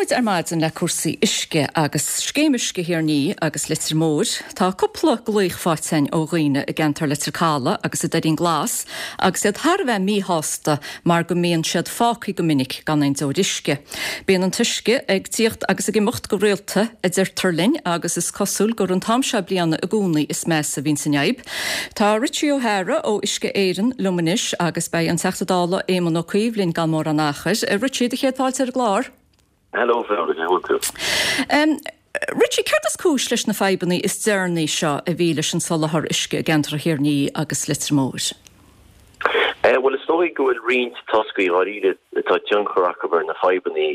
Tosóidh muid ar maidin le cúrsaí uisce agus Scéim Uisce Thír an Fhia agus Leitir Móir. Tá cúpla glaoch faighte againn ó dhaoine i gceantar Leitir Calaidh agus i Doirín Glas agus iad thar a bheith míshásta mar go mbíonn siad fágtha go minic gan aon deoir uisce. Bíonn an t-uisce ag tíocht agus ag imeacht go rialta, a deirtear linn, agus is cosúil gur an t-am seo bliana i gcónaí is measa a bhíonns an fhadhb. Tá Richie O'Hara ó Uisce Éireann liom anois agus beidh an Teachta Dála Éamon Ó Cuív linn gan mórán achair. Richie, do chéad fáilte ar an gclár. Hello Fiona, cén chaoi a bhfuil tú? Richie, céard is cúis leis na fadhbanna is deireanaí seo a bhí leis an soláthar uisce i gceantar Thír an Fhia agus Leitir Móir? Bhuel, is dóigh go bhfuil roinnt toscaí dháiríre atá tionchar acu ar na fadhbanna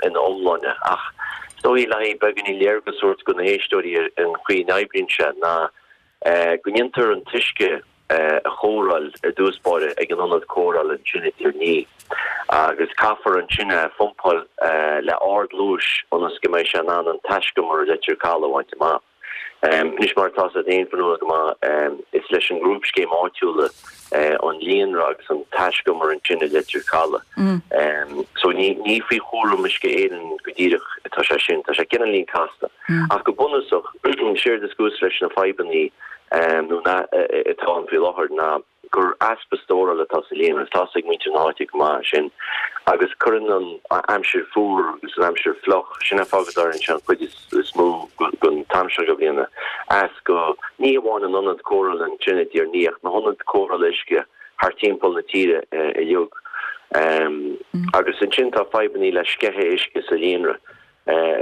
ina iomláine ach is dóigh le haghaidh beagáinín léargas a thabhairt do na héisteoirí ar an chaoi a n-oibríonn sé ná go ndéantar an t-uisce a chóireáil ar dtús báire ag an ionad cóireála ansin i dTír an Fhia agus caithfear ansin é a phumpáil le ardluais ionas go mbeidh sé in ann an taiscumar i Leitir Calaidh a bhaint amach. Anois mar atá a fhios agat féin Fionnuala go maith, is leis an ngrúpscéim áitiúla an líonra agus an taiscumar ansin i Leitir Calaidh. So ní ní faoi chúram Uisce Éireann go díreach atá sé sin, tá sé cineáilín casta. Ach go bunúsach, séard is cúis leis na fadhbanna nó na atá ann faoi láthair ná gur easpa stórála atá sa líonra. Tá a fhios ag muintir na háite go maith sin agus cuireann an aimsir fuar agus an aimsir fliuch, sin an fáth go dtarlaíonn sé an chuid is mó den t-am seo de bhliana, as go, ní hamháin an ionad cóireála ansin i dTír an Fhia ach na hionaid cóireála uisce thart timpeall na tíre uilig. Agus ansin tá fadhbanna le sceitheadh uisce sa líonra.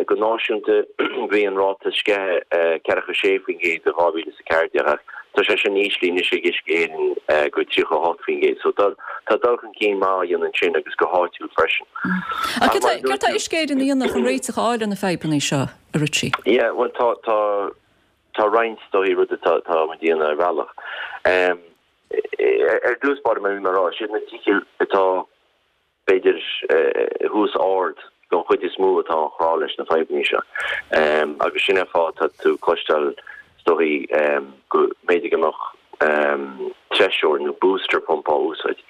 Go náisiúnta, bhí an ráta sceithe 46% i 2014 ach tá sé sin íslithe anois ag Uisce Éireann go 38%. So tá dul chun cinn maith á dhéanamh ansin agus go háitiúil freisin. Ach céard tá Uisce Éireann a dhéanamh chun réiteach a fháil ar na fadhbanna seo, a Richie? Yeah, bhuel tá tá tá roinnt dóigh rudaí atá tá muid a dhéanamh ar bhealach. Ar dtús báire mar a bhí mé a rá, siad na tithe atá b'fhéidir, thuas ard don chuid is mó atá á chrá leis na fadhbanna seo. Agus sin é an fáth atá tú ag cloisteáil, is dóichí, go mb'fhéidir go mbeadh treiseoir nó booster pump á úsáid.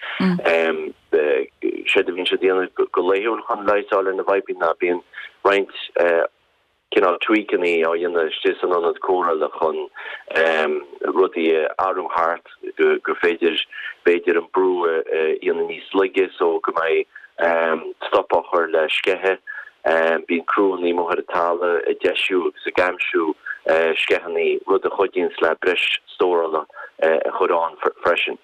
Séard a bhíonn siad a dhéanamh go laethúil chun leigheas a fháil ar na bhfadhbanna ná bíonn roinnt cineál tweakanna á dhéanamh istigh san ionad cóireála chun rudaí a athrú thart gur féidir b'fhéidir an brú a dhéanamh níos laige so go mbeidh stop á chur le sceitheadh. Bíonn criúnna amuigh ar an talamh ag deisiú agus ag aimsiú sceitheanna, rud a chuidíonns le breis stórála a chur ann freisin.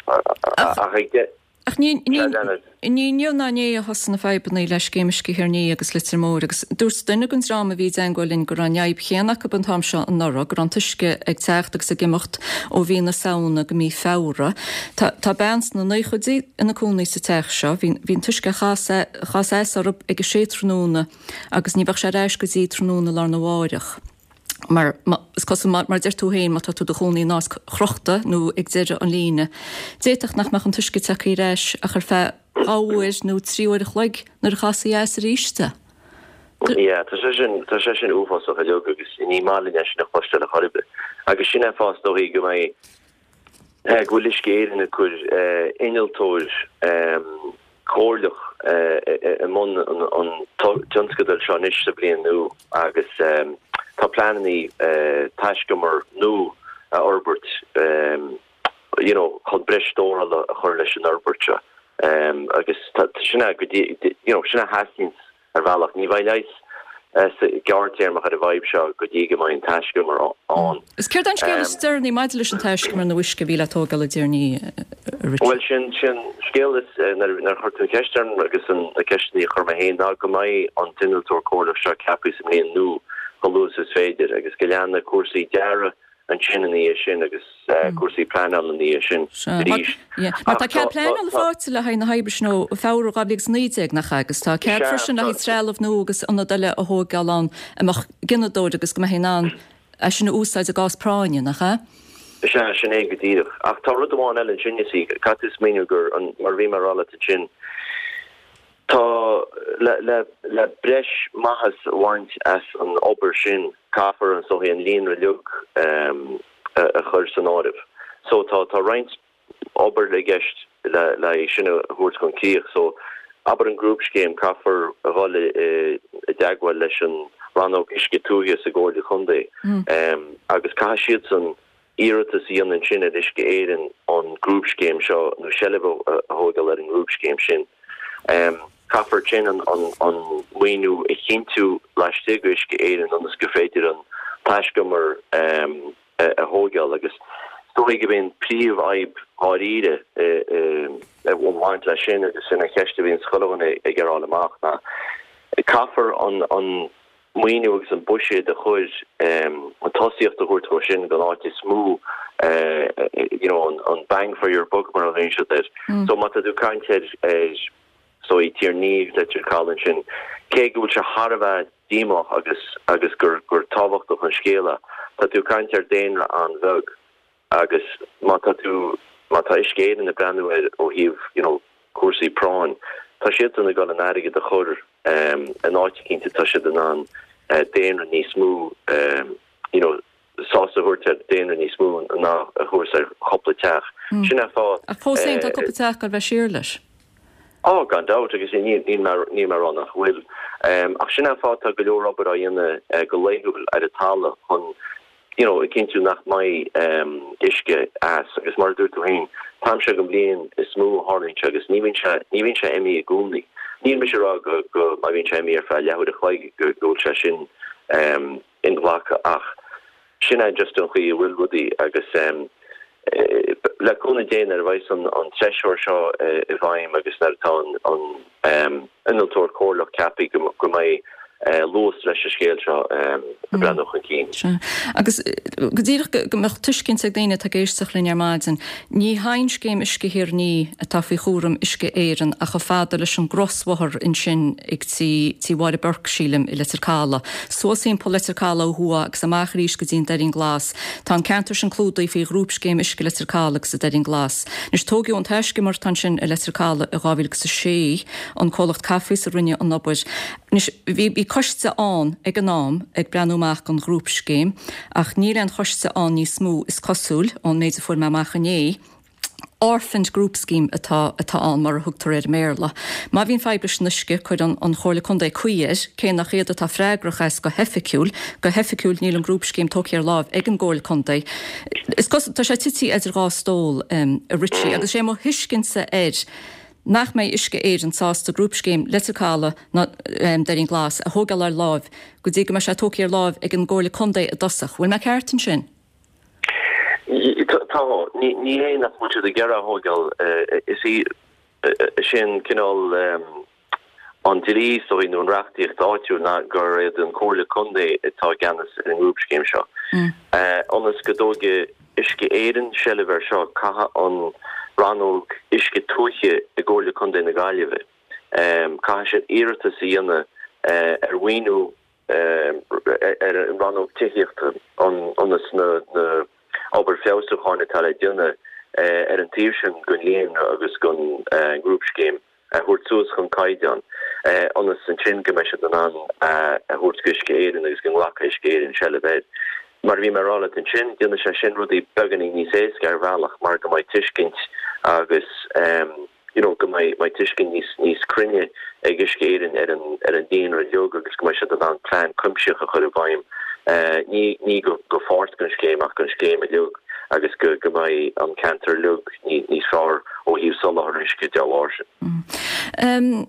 Ach ag. Ach ní inniu ná inné a thosaigh na fadhbanna le Scéim Uisce Thír an Fhia agus Leitir Móir agus dúirt duine den dream a bhí i dteangmháil linn go raibh an fhadhb chéanna acu an t-am seo anuraidh, go raibh an t-uisce ag teacht agus ag imeacht ó mhí na Samhna go mí Feabhra. Tá bean sna naochaidí ina cónaí sa teach seo. Bhí an t-uisce ag casadh as orthu ag a sé tráthnóna agus ní bheadh sé ar ais go dtí tráthnóna lá arna mháireach. Mar is cosúil, mar a deir tú féin, má tá tú i do chónaí in áit chrochta nó ag deireadh an líne, d'fhéadfadh nach mbeadh an t-uisce tagtha ar ais ach ar feadh 2 uair nó 3 uair a chloig nuair a chasfaí as arís é. Yeah, tá sé sin, tá sé sin uafásach uilig agus ní maith linn é sin a chloisteáil ar chor ar bith. Agus sin é an fáth is dóichí go mbeidh, go bhfuil Uisce Éireann ag cur innealtóir comhairleach i mbun an tionscadail seo anois sa bhliain nua agus tá pleananna taiscumar nua a fhorbairt you know chun breis stórála a chur leis an fhorbairt seo agus sin é go dtí you know sin a theastaíonn Ar bhealach, ní bheidh leigheas gearrthéarmach ar an bhfadhb seo go dtí go mbeidh an taiscumar ann. Is céard é an scéal is deireanaí maidir leis an taiscumar nua uisce a bhí le tógáil i dTír an Fhia, a Richie? Bhuel, sin sin scéal is nuair a chuir tú an cheist orm agus na ceisteanna a chuir mé féin ná go mbeidh an t-innealtóir comhairleach seo ceaptha sa mbliain nua chomh luath is is féidir agus go leanfaidh cúrsaí dearaidh ansin ina dhiaidh sin agus cúrsaí pleanála ina dhiaidh sin arís. Mar tá cead pleanála faighte le haghaidh na hoibre sin ó Feabhra 2019, nach ea? Agus tá cead freisin le haghaidh trealamh nua agus ionad eile a thóigeáil ann a mbeadh gineadóir agus go mbeifí in ann é sin a úsáid i gcás práinne, nach ea? Sea, sin é go díreach. Ach tá rud amháin eile ansin, you see, caithfidh tú smaoineamh gur, mar a bhí mé a rá leat ansin, Tá, le breis maitheas a bhaint as an obair sin, caithfear is dóichí an líonra uilig a chur san áireamh. So tá roinnt obair i gceist le é sin a thabhairt chun críoch. So. Abair an grúpscéim, caithfear a dhul i dteagmháil leis an Rannóg Uisce Tuaithe sa gComhairle Contae agus caithfidh siadsan iarratas a dhéanamh ansin ar Uisce Éireann an grúpscéim seo nó seilbh a thóigeáil ar an ngrúpscéim sin. Caithfear ansin an maoiniú a chinntiú laistigh d'Uisce Éireann ionas gur féidir an taiscumar a thóigeáil agus is dóigh gurb é an príomhfhadhb dháiríre a bhaint leis sin agus sin an cheist a bhíonn chuile dhuine ag iarraidh a fháil amach ná caithfear an maoiniú agus an buiséad a chur, an tosaíocht a thabhairt dhó sin don áit is mó you know an bang for your buck mar a ghlaonn siad air. So má tá tú ag caint ar is dóigh Tír an Fhia agus Leitir Caladh ansin, cé go bhfuil sé thar a bheith díomách agus agus gur gur tábhachtach an scéal é, tá tú ag caint ar daonra an-bheag agus má tá tú má tá Uisce Éireann ag breathnú air ó thaobh you know cúrsaí práinn, tá siadsan ag dul an airgead a chur in áit eicínt atá siad in ann daonra níos mó you know sásamh a thabhairt ar daonra níos mó ná a thabhairt ar chúpla teach. Sin é an fáth. Ach fós féin tá cúpla teach ag goil a bheith siar leis. Ó, gan dabht, agus níl mé ag rá nach bhfuil. Ach sin é an fáth tá go leor obair á dhéanamh go laethúil ar an talamh chun you know a chinntiú nach mbeidh uisce as. Agus mar a dúirt tú féin, an t-am seo den bhliain is mó a tharlaíonn sé agus ní bhíonn sé, ní bhíonn sé imithe i gcónaí. Níl mise ag rá go, go, má bhíonn sé imithe ar feadh leathuair a chloig go bhfuil sé sin inghlactha ach sin é just an chaoi a bhfuil rudaí agus le cúnamh Dé nuair a bheidh an treisitheoir seo i bhfeidhm agus nuair atá an innealtóir comhairleach ceaptha go mbeidh luas leis an scéal seo ag breathnú chun cinn. Sea. Agus go díreach go mbeadh tuiscint ag daoine atá ag éisteacht linn ar maidin, ní haon scéim Uisce Thír an Fhia atá faoi chúram Uisce Éireann ach chomh fada leis an gcrosbhóthar ansin ag tí tí Mháire Burke, sílim, i Leitir Caladh. Suas thimpeall Leitir Caladh ó thuaidh agus amach arís go dtí an Doirín Glas. Tá an ceantar sin clúdaithe faoi Ghrúpscéim Uisce Leitir Caladh agus an Doirín Glas. Anois, tóigeadh an taiscumar atá ansin i Leitir Caladh i 2006, an comhlacht Cafis a rinne an obair. Anois, bhí bhí coiste ann ag an am ag breathnú amach don Ghrúpscéim ach níl aon choiste ann níos mó, is cosúil, ón méid a fuair mé amach inné. Orphaned Group Scheme atá atá ann, mar a thugtar air i mBéarla. Má bhíonn fadhb leis an uisce, cuireann an Chomhairle Contae caoi air, cé nach iad atá freagrach as go hoifigiúil. Go hoifigiúil, níl an Grúpscéim tógtha ar láimh ag an gComhairle Contae. Is cosúil, tá sé tite idir dhá stól, a Richie, agus is é mo thuiscintse air nach mbeidh Uisce Éireann sásta Grúpscéim Leitir Caladh ná Doirín Glas a thógáil ar láimh go dtí go mbeidh sé tógtha ar láimh ag an gComhairle Contae i dtosach. Bhfuil mé ceart ansin? Tá. Ní hé nach bhfuil siad ag iarraidh a thógáil. Is í sin cineál an dlí, is dóigh, nó an reachtaíocht áitiúil ná gur iad an Comhairle Contae atá i gceannas ar an ngrúpscéim seo. Ionas go dtógfaidh Uisce Éireann seilbh air seo, caithfidh an Rannóg Uisce Tuaithe i gComhairle Contae na Gaillimhe, caithfidh siad iarratas a dhéanamh ar mhaoiniú ar an rannóg tithíochta ionas na obair feabhsúcháin atá le déanamh ar an taobh sin den líonra agus den ngrúpscéim a thabhairt suas chun caighdeán ionas ansin go mbeidh siad in ann a thabhairt go Uisce Éireann agus go nglacfaidh Uisce Éireann seilbh air. Mar a bhí mé ag rá leat ansin, déanfaidh sé sin rudaí beagáinín níos éasca ar bhealach mar go mbeidh tuiscint agus you know go mbeidh mbeidh tuiscint níos níos cruinne ag Uisce Éireann ar an ar an líonra uilig agus go mbeidh siad in ann plean cuimsitheach a chur i bhfeidhm ní ní go go pháirt den scéim ach don scéim uilig agus go go mbeidh an ceantar uilig ní níos fearr ó thaobh soláthar uisce dá bharr sin.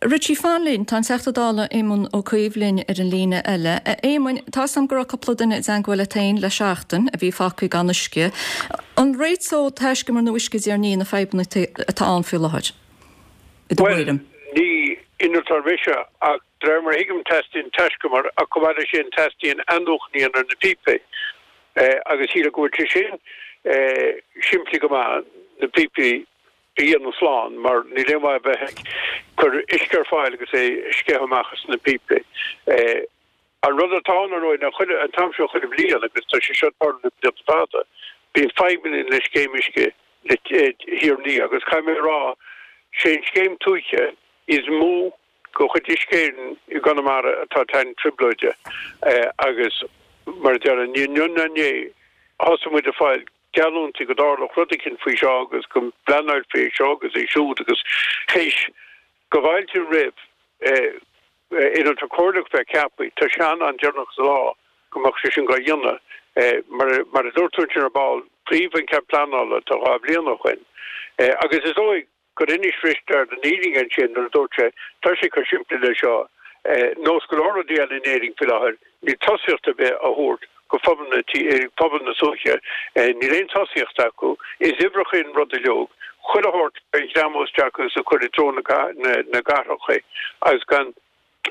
Richie, fan linn, tá an Teachta Dála Éamon Ó Cuív linn ar an líne eile. A Éamoin, tá 'fhios a'm go raibh cúpla duine i dteangmháil leat féin le seachtain a bhí fágtha gan uisce. An réiteodh taiscumar nua Uisce Thír an Fhia na fadhbanna atá ann faoi láthair, i do thuairim? Bhuel, ní innealtóir mise ach de réir mar a thuigim teastaíonn taiscumar ach chomh maith leis sin teastaíonn athnuachan a dhéanamh ar na píopaí agus sílim go bhfuil sé sin simplí go maith, na píopaí a dhéanamh slán mar níl aon mhaith a bheith ag cur uisce ar fáil agus é ag sceitheadh amach as na píopaí. An rud atá ann, ar ndóigh, ná chuile, an t-am seo chuile bhliain, agus tá sé seo ag tarlú le blianta fada, bíonn fadhbanna le scéim uisce Thír an Fhia agus caithfidh mé a rá, sé an scéim tuaithe is mó de chuid Uisce Éireann i gConamara atá ag tarraingt trioblóide agus mar a déarfá, ní inniu ná inné a thosaigh muid ag fáil geallúintí go dtarlódh rud eicínt faoi seo agus go bpleanáilfí é seo agus é siúd agus théis. Go bhfáiltím roimh innealtóir comhairleach bheith ceaptha, tá sé an-am deireanach sa lá go mbeadh sé sin dhá dhéanamh. Mar a dúirt tú ansin ar ball, faomhadh an cead pleanála tá 2 bhliain ó shoin agus is dóigh gur inis Risteard an fhírinne ansin nuair a dúirt sé, tá sé chomh simplí le seo, nós go leor rudaí eile in Éirinn faoi láthair, níl tosaíocht ar bith á thabhairt go phobal na pobal na tuaithe, níl aon tosaíocht acu, is uimhreacha an rud uileag, chuile shórt a ghreamú isteach agus a chur i dtreo na gcathracha agus gan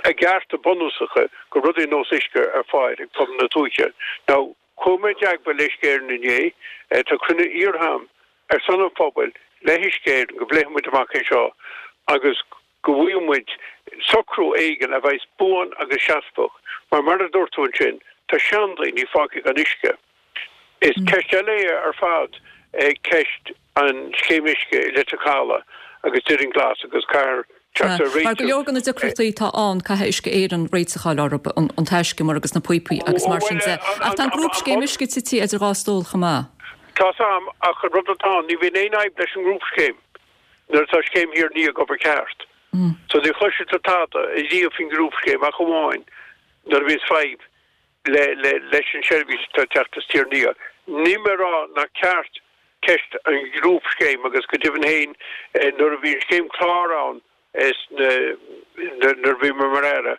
a gcearta bunúsacha go rudaí ar nós uisce ar fáil ag pobal na tuaithe. Now, chuaigh mé i dteagmháil le Uisce Éireann inné, tá cruinniú iarrtha agam ar son an phobail le hUisce Éireann go bpléifidh muid amach é seo agus go bhfaighidh muid socrú éigin a bheas buan agus seasmhach mar mar a dúirt tú ansin, tá seandaoine fágtha gan uisce. Is ceist eile é ar fad ceist an scéim uisce i Leitir Caladh agus Doirín Glas agus caithfear teacht ar réiteach. Mar go leor de na deacrachtaí atá ann, caithfidh Uisce Éireann réiteach a fháil orthu, an taiscumar agus na píopaí agus mar sin de. Ach tá an grúpscéim uisce tite idir dhá stól chomh maith. Tá's a'm, ach an rud atá ann, ní bhíonn aon fhadhb leis an ngrúpscéim nuair atá scéim Thír an Fhia ag obair ceart. So ní chloisfidh tú tada ariamh faoin ngrúpscéim ach amháin nuair a bhíonns fadhb le leis an seirbhís atá ag teacht as Tír an Fhia. Níl mé ag rá nach ceart ceist an ghrúpscéim agus go deimhin féin nuair a bhí an scéim clár ann nuair a bhí mé mar Aire,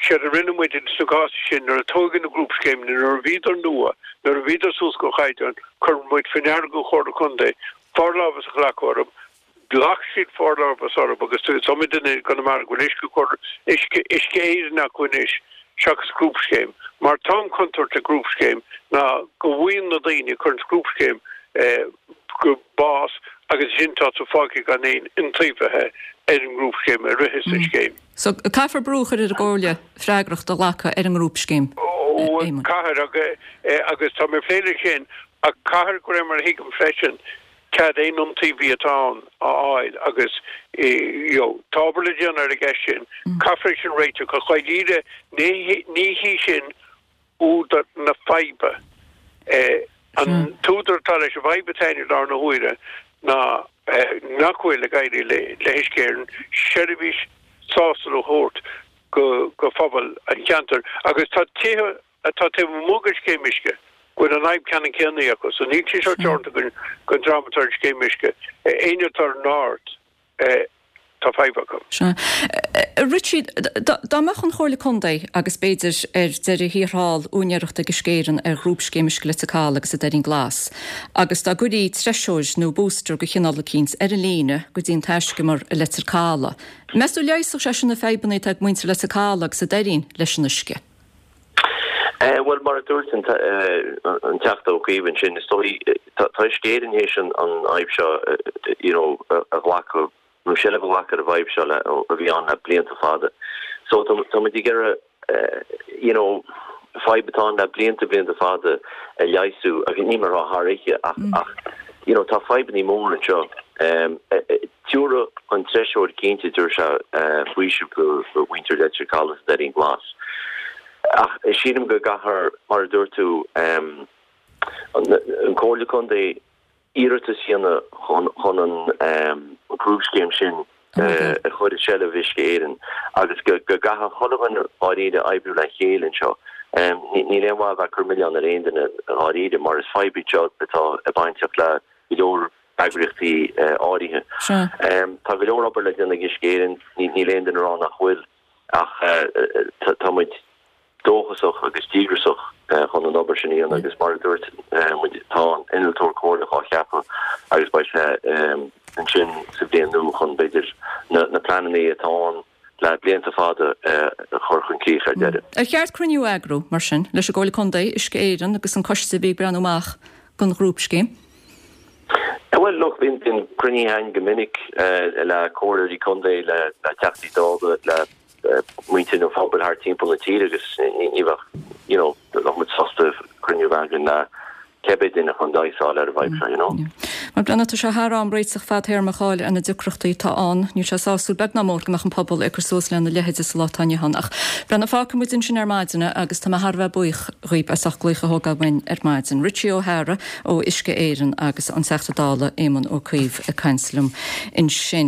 séard a rinne muid sna cásanna sin nuair a tóigeadh na grúpscéimeanna, nuair a bhíodar nua, nuair a bhíodar suas go chaighdeán, chuir muid faoi ndeara don Chomhairle Contae forlámhas a ghlacadh orthu. Ghlac siad forlámhas orthu agus is iomaí duine i gConamara go bhfuil uisce cur uisce Uisce Éireann acu anois seachas grúpscéim. Mar tá an chontúirt le grúpscéim ná go bhfaigheann na daoine a chuireann grúpscéim go bás agus ansin tá tú fágtha gan aon iontaobhaithe ar an ngrúpscéim a ritheas an scéim. So caithfear brú a chur ar an gComhairle freagracht a ghlacadh ar an ngrúpscéim, a Éamoinn. Caithfear agus tá mé ag plé leis sin ach caithfear de réir mar a thuigim freisin cead aon iontaobhaí atá ann a fháil agus you know tá obair le déanamh ar an gceist sin. Caithfear é sin a réiteach ach dháiríre ní hí sin údar na faidhbe. An t-údar atá leis an bhfadhb atá ann i láthair na huaire ná nach bhfuil ag éirí le hUisce Éireann seirbhís sásúil a thabhairt go phobal an cheantair agus tá tithe atá taobh amuigh den scéim uisce, go bhfuil an fhadhb ceannann céanna acu. So níl sé seo teoranta don dream atá ar an scéim uisce. Éinne atá ar an Aird, tá fadhb acu. Sea. A Richie, dá mbeadh an Chomhairle Contae agus b'fhéidir ar deireadh thiar thall úinéireacht ag Uisce Éireann ar Ghrúpscéim Uisce Leitir Caladh agus an Doirín Glas agus dá gcuirí treiseoir nó booster de chineál eicínt ar an líne go dtí an taiscumar i Leitir Caladh, meas tú leigheasfadh sé sin na fadhbanna atá ag muintir Leitir Caladh agus an Doirín leis an uisce? Bhuel, mar a dúirt an Teachta Ó Cuív ansin, is dóigh, tá Uisce Éireann théis an fhadhb seo you know a ghlacadh, nó seilbh a ghlacadh ar an bhfadhb seo le, a bhí ann le blianta fada. So tá muid ag iarraidh you know fadhb atá ann le blianta, blianta fada a leigheasú, agus níl mé ag rá thar oíche ach, ach you know tá fadhbannaí móra anseo. Tiúrfaidh an treiseoir cinnte, tabharfaidh sé faoiseamh do mhuintir Leitir Caladh is Doirín Glas. Ach sílim go gcaithfear, mar a dúirt tú, an Comhairle Contae iarratas a dhéanamh chun an grúpscéim sin a chur i seilbh Uisce Éireann agus go gcaithfidh chuile dhuine dháiríre oibriú le chéile anseo. Níl aon mhaith a bheith ag cur milleán ar aon duine dháiríre mar is fadhb í seo atá bainteach le go leor eagraíochtaí áirithe. Tá go leor obair le déanamh ag Uisce Éireann, níl aon duine ag rá nach bhfuil, ach tá muid dóchasach agus díograsach chun an obair sin a dhéanamh agus mar a dúirt muid, tá an innealtóir comhairleach á cheapadh agus beidh sé ansin sa bhliain nua chun, b'fhéidir, na pleananna atá ann le blianta fada a chur chun críche ar deireadh. Ar cheart cruinniú a eagrú, mar sin, leis an gComhairle Contae, Uisce Éireann agus an coiste a bhí ag breathnú amach don ghrúpscéim? Bhuel, look, bíonn cruinnithe againn go minic le comhairleoirí contae, le Teachtaí Dála, le muintir an phobail thart timpeall na tíre agus ní bheadh, you know, bheadh muid sásta cruinniú a bheith againn le cibé duine chun leigheas a fháil ar an bhfadhb seo, you know. Mar breathnaigh, tá sé thar am réiteach fadtéarmach a fháil ar na deacrachtaí atá ann. Níl sé sásúil beag ná mór go mbeadh an pobal ag cur suas lena leithéide sa lá atá inniu ann. Ach breathnaigh, fágfaidh muid ansin ar maidin agus tá mé thar a bheith buíoch dhaoib as ucht glaoch a thógáil uainn ar maidin. Richie O'Hara ó Uisce Éireann agus an Teachta Dála Éamon Ó Cuív ag caint liom ansin.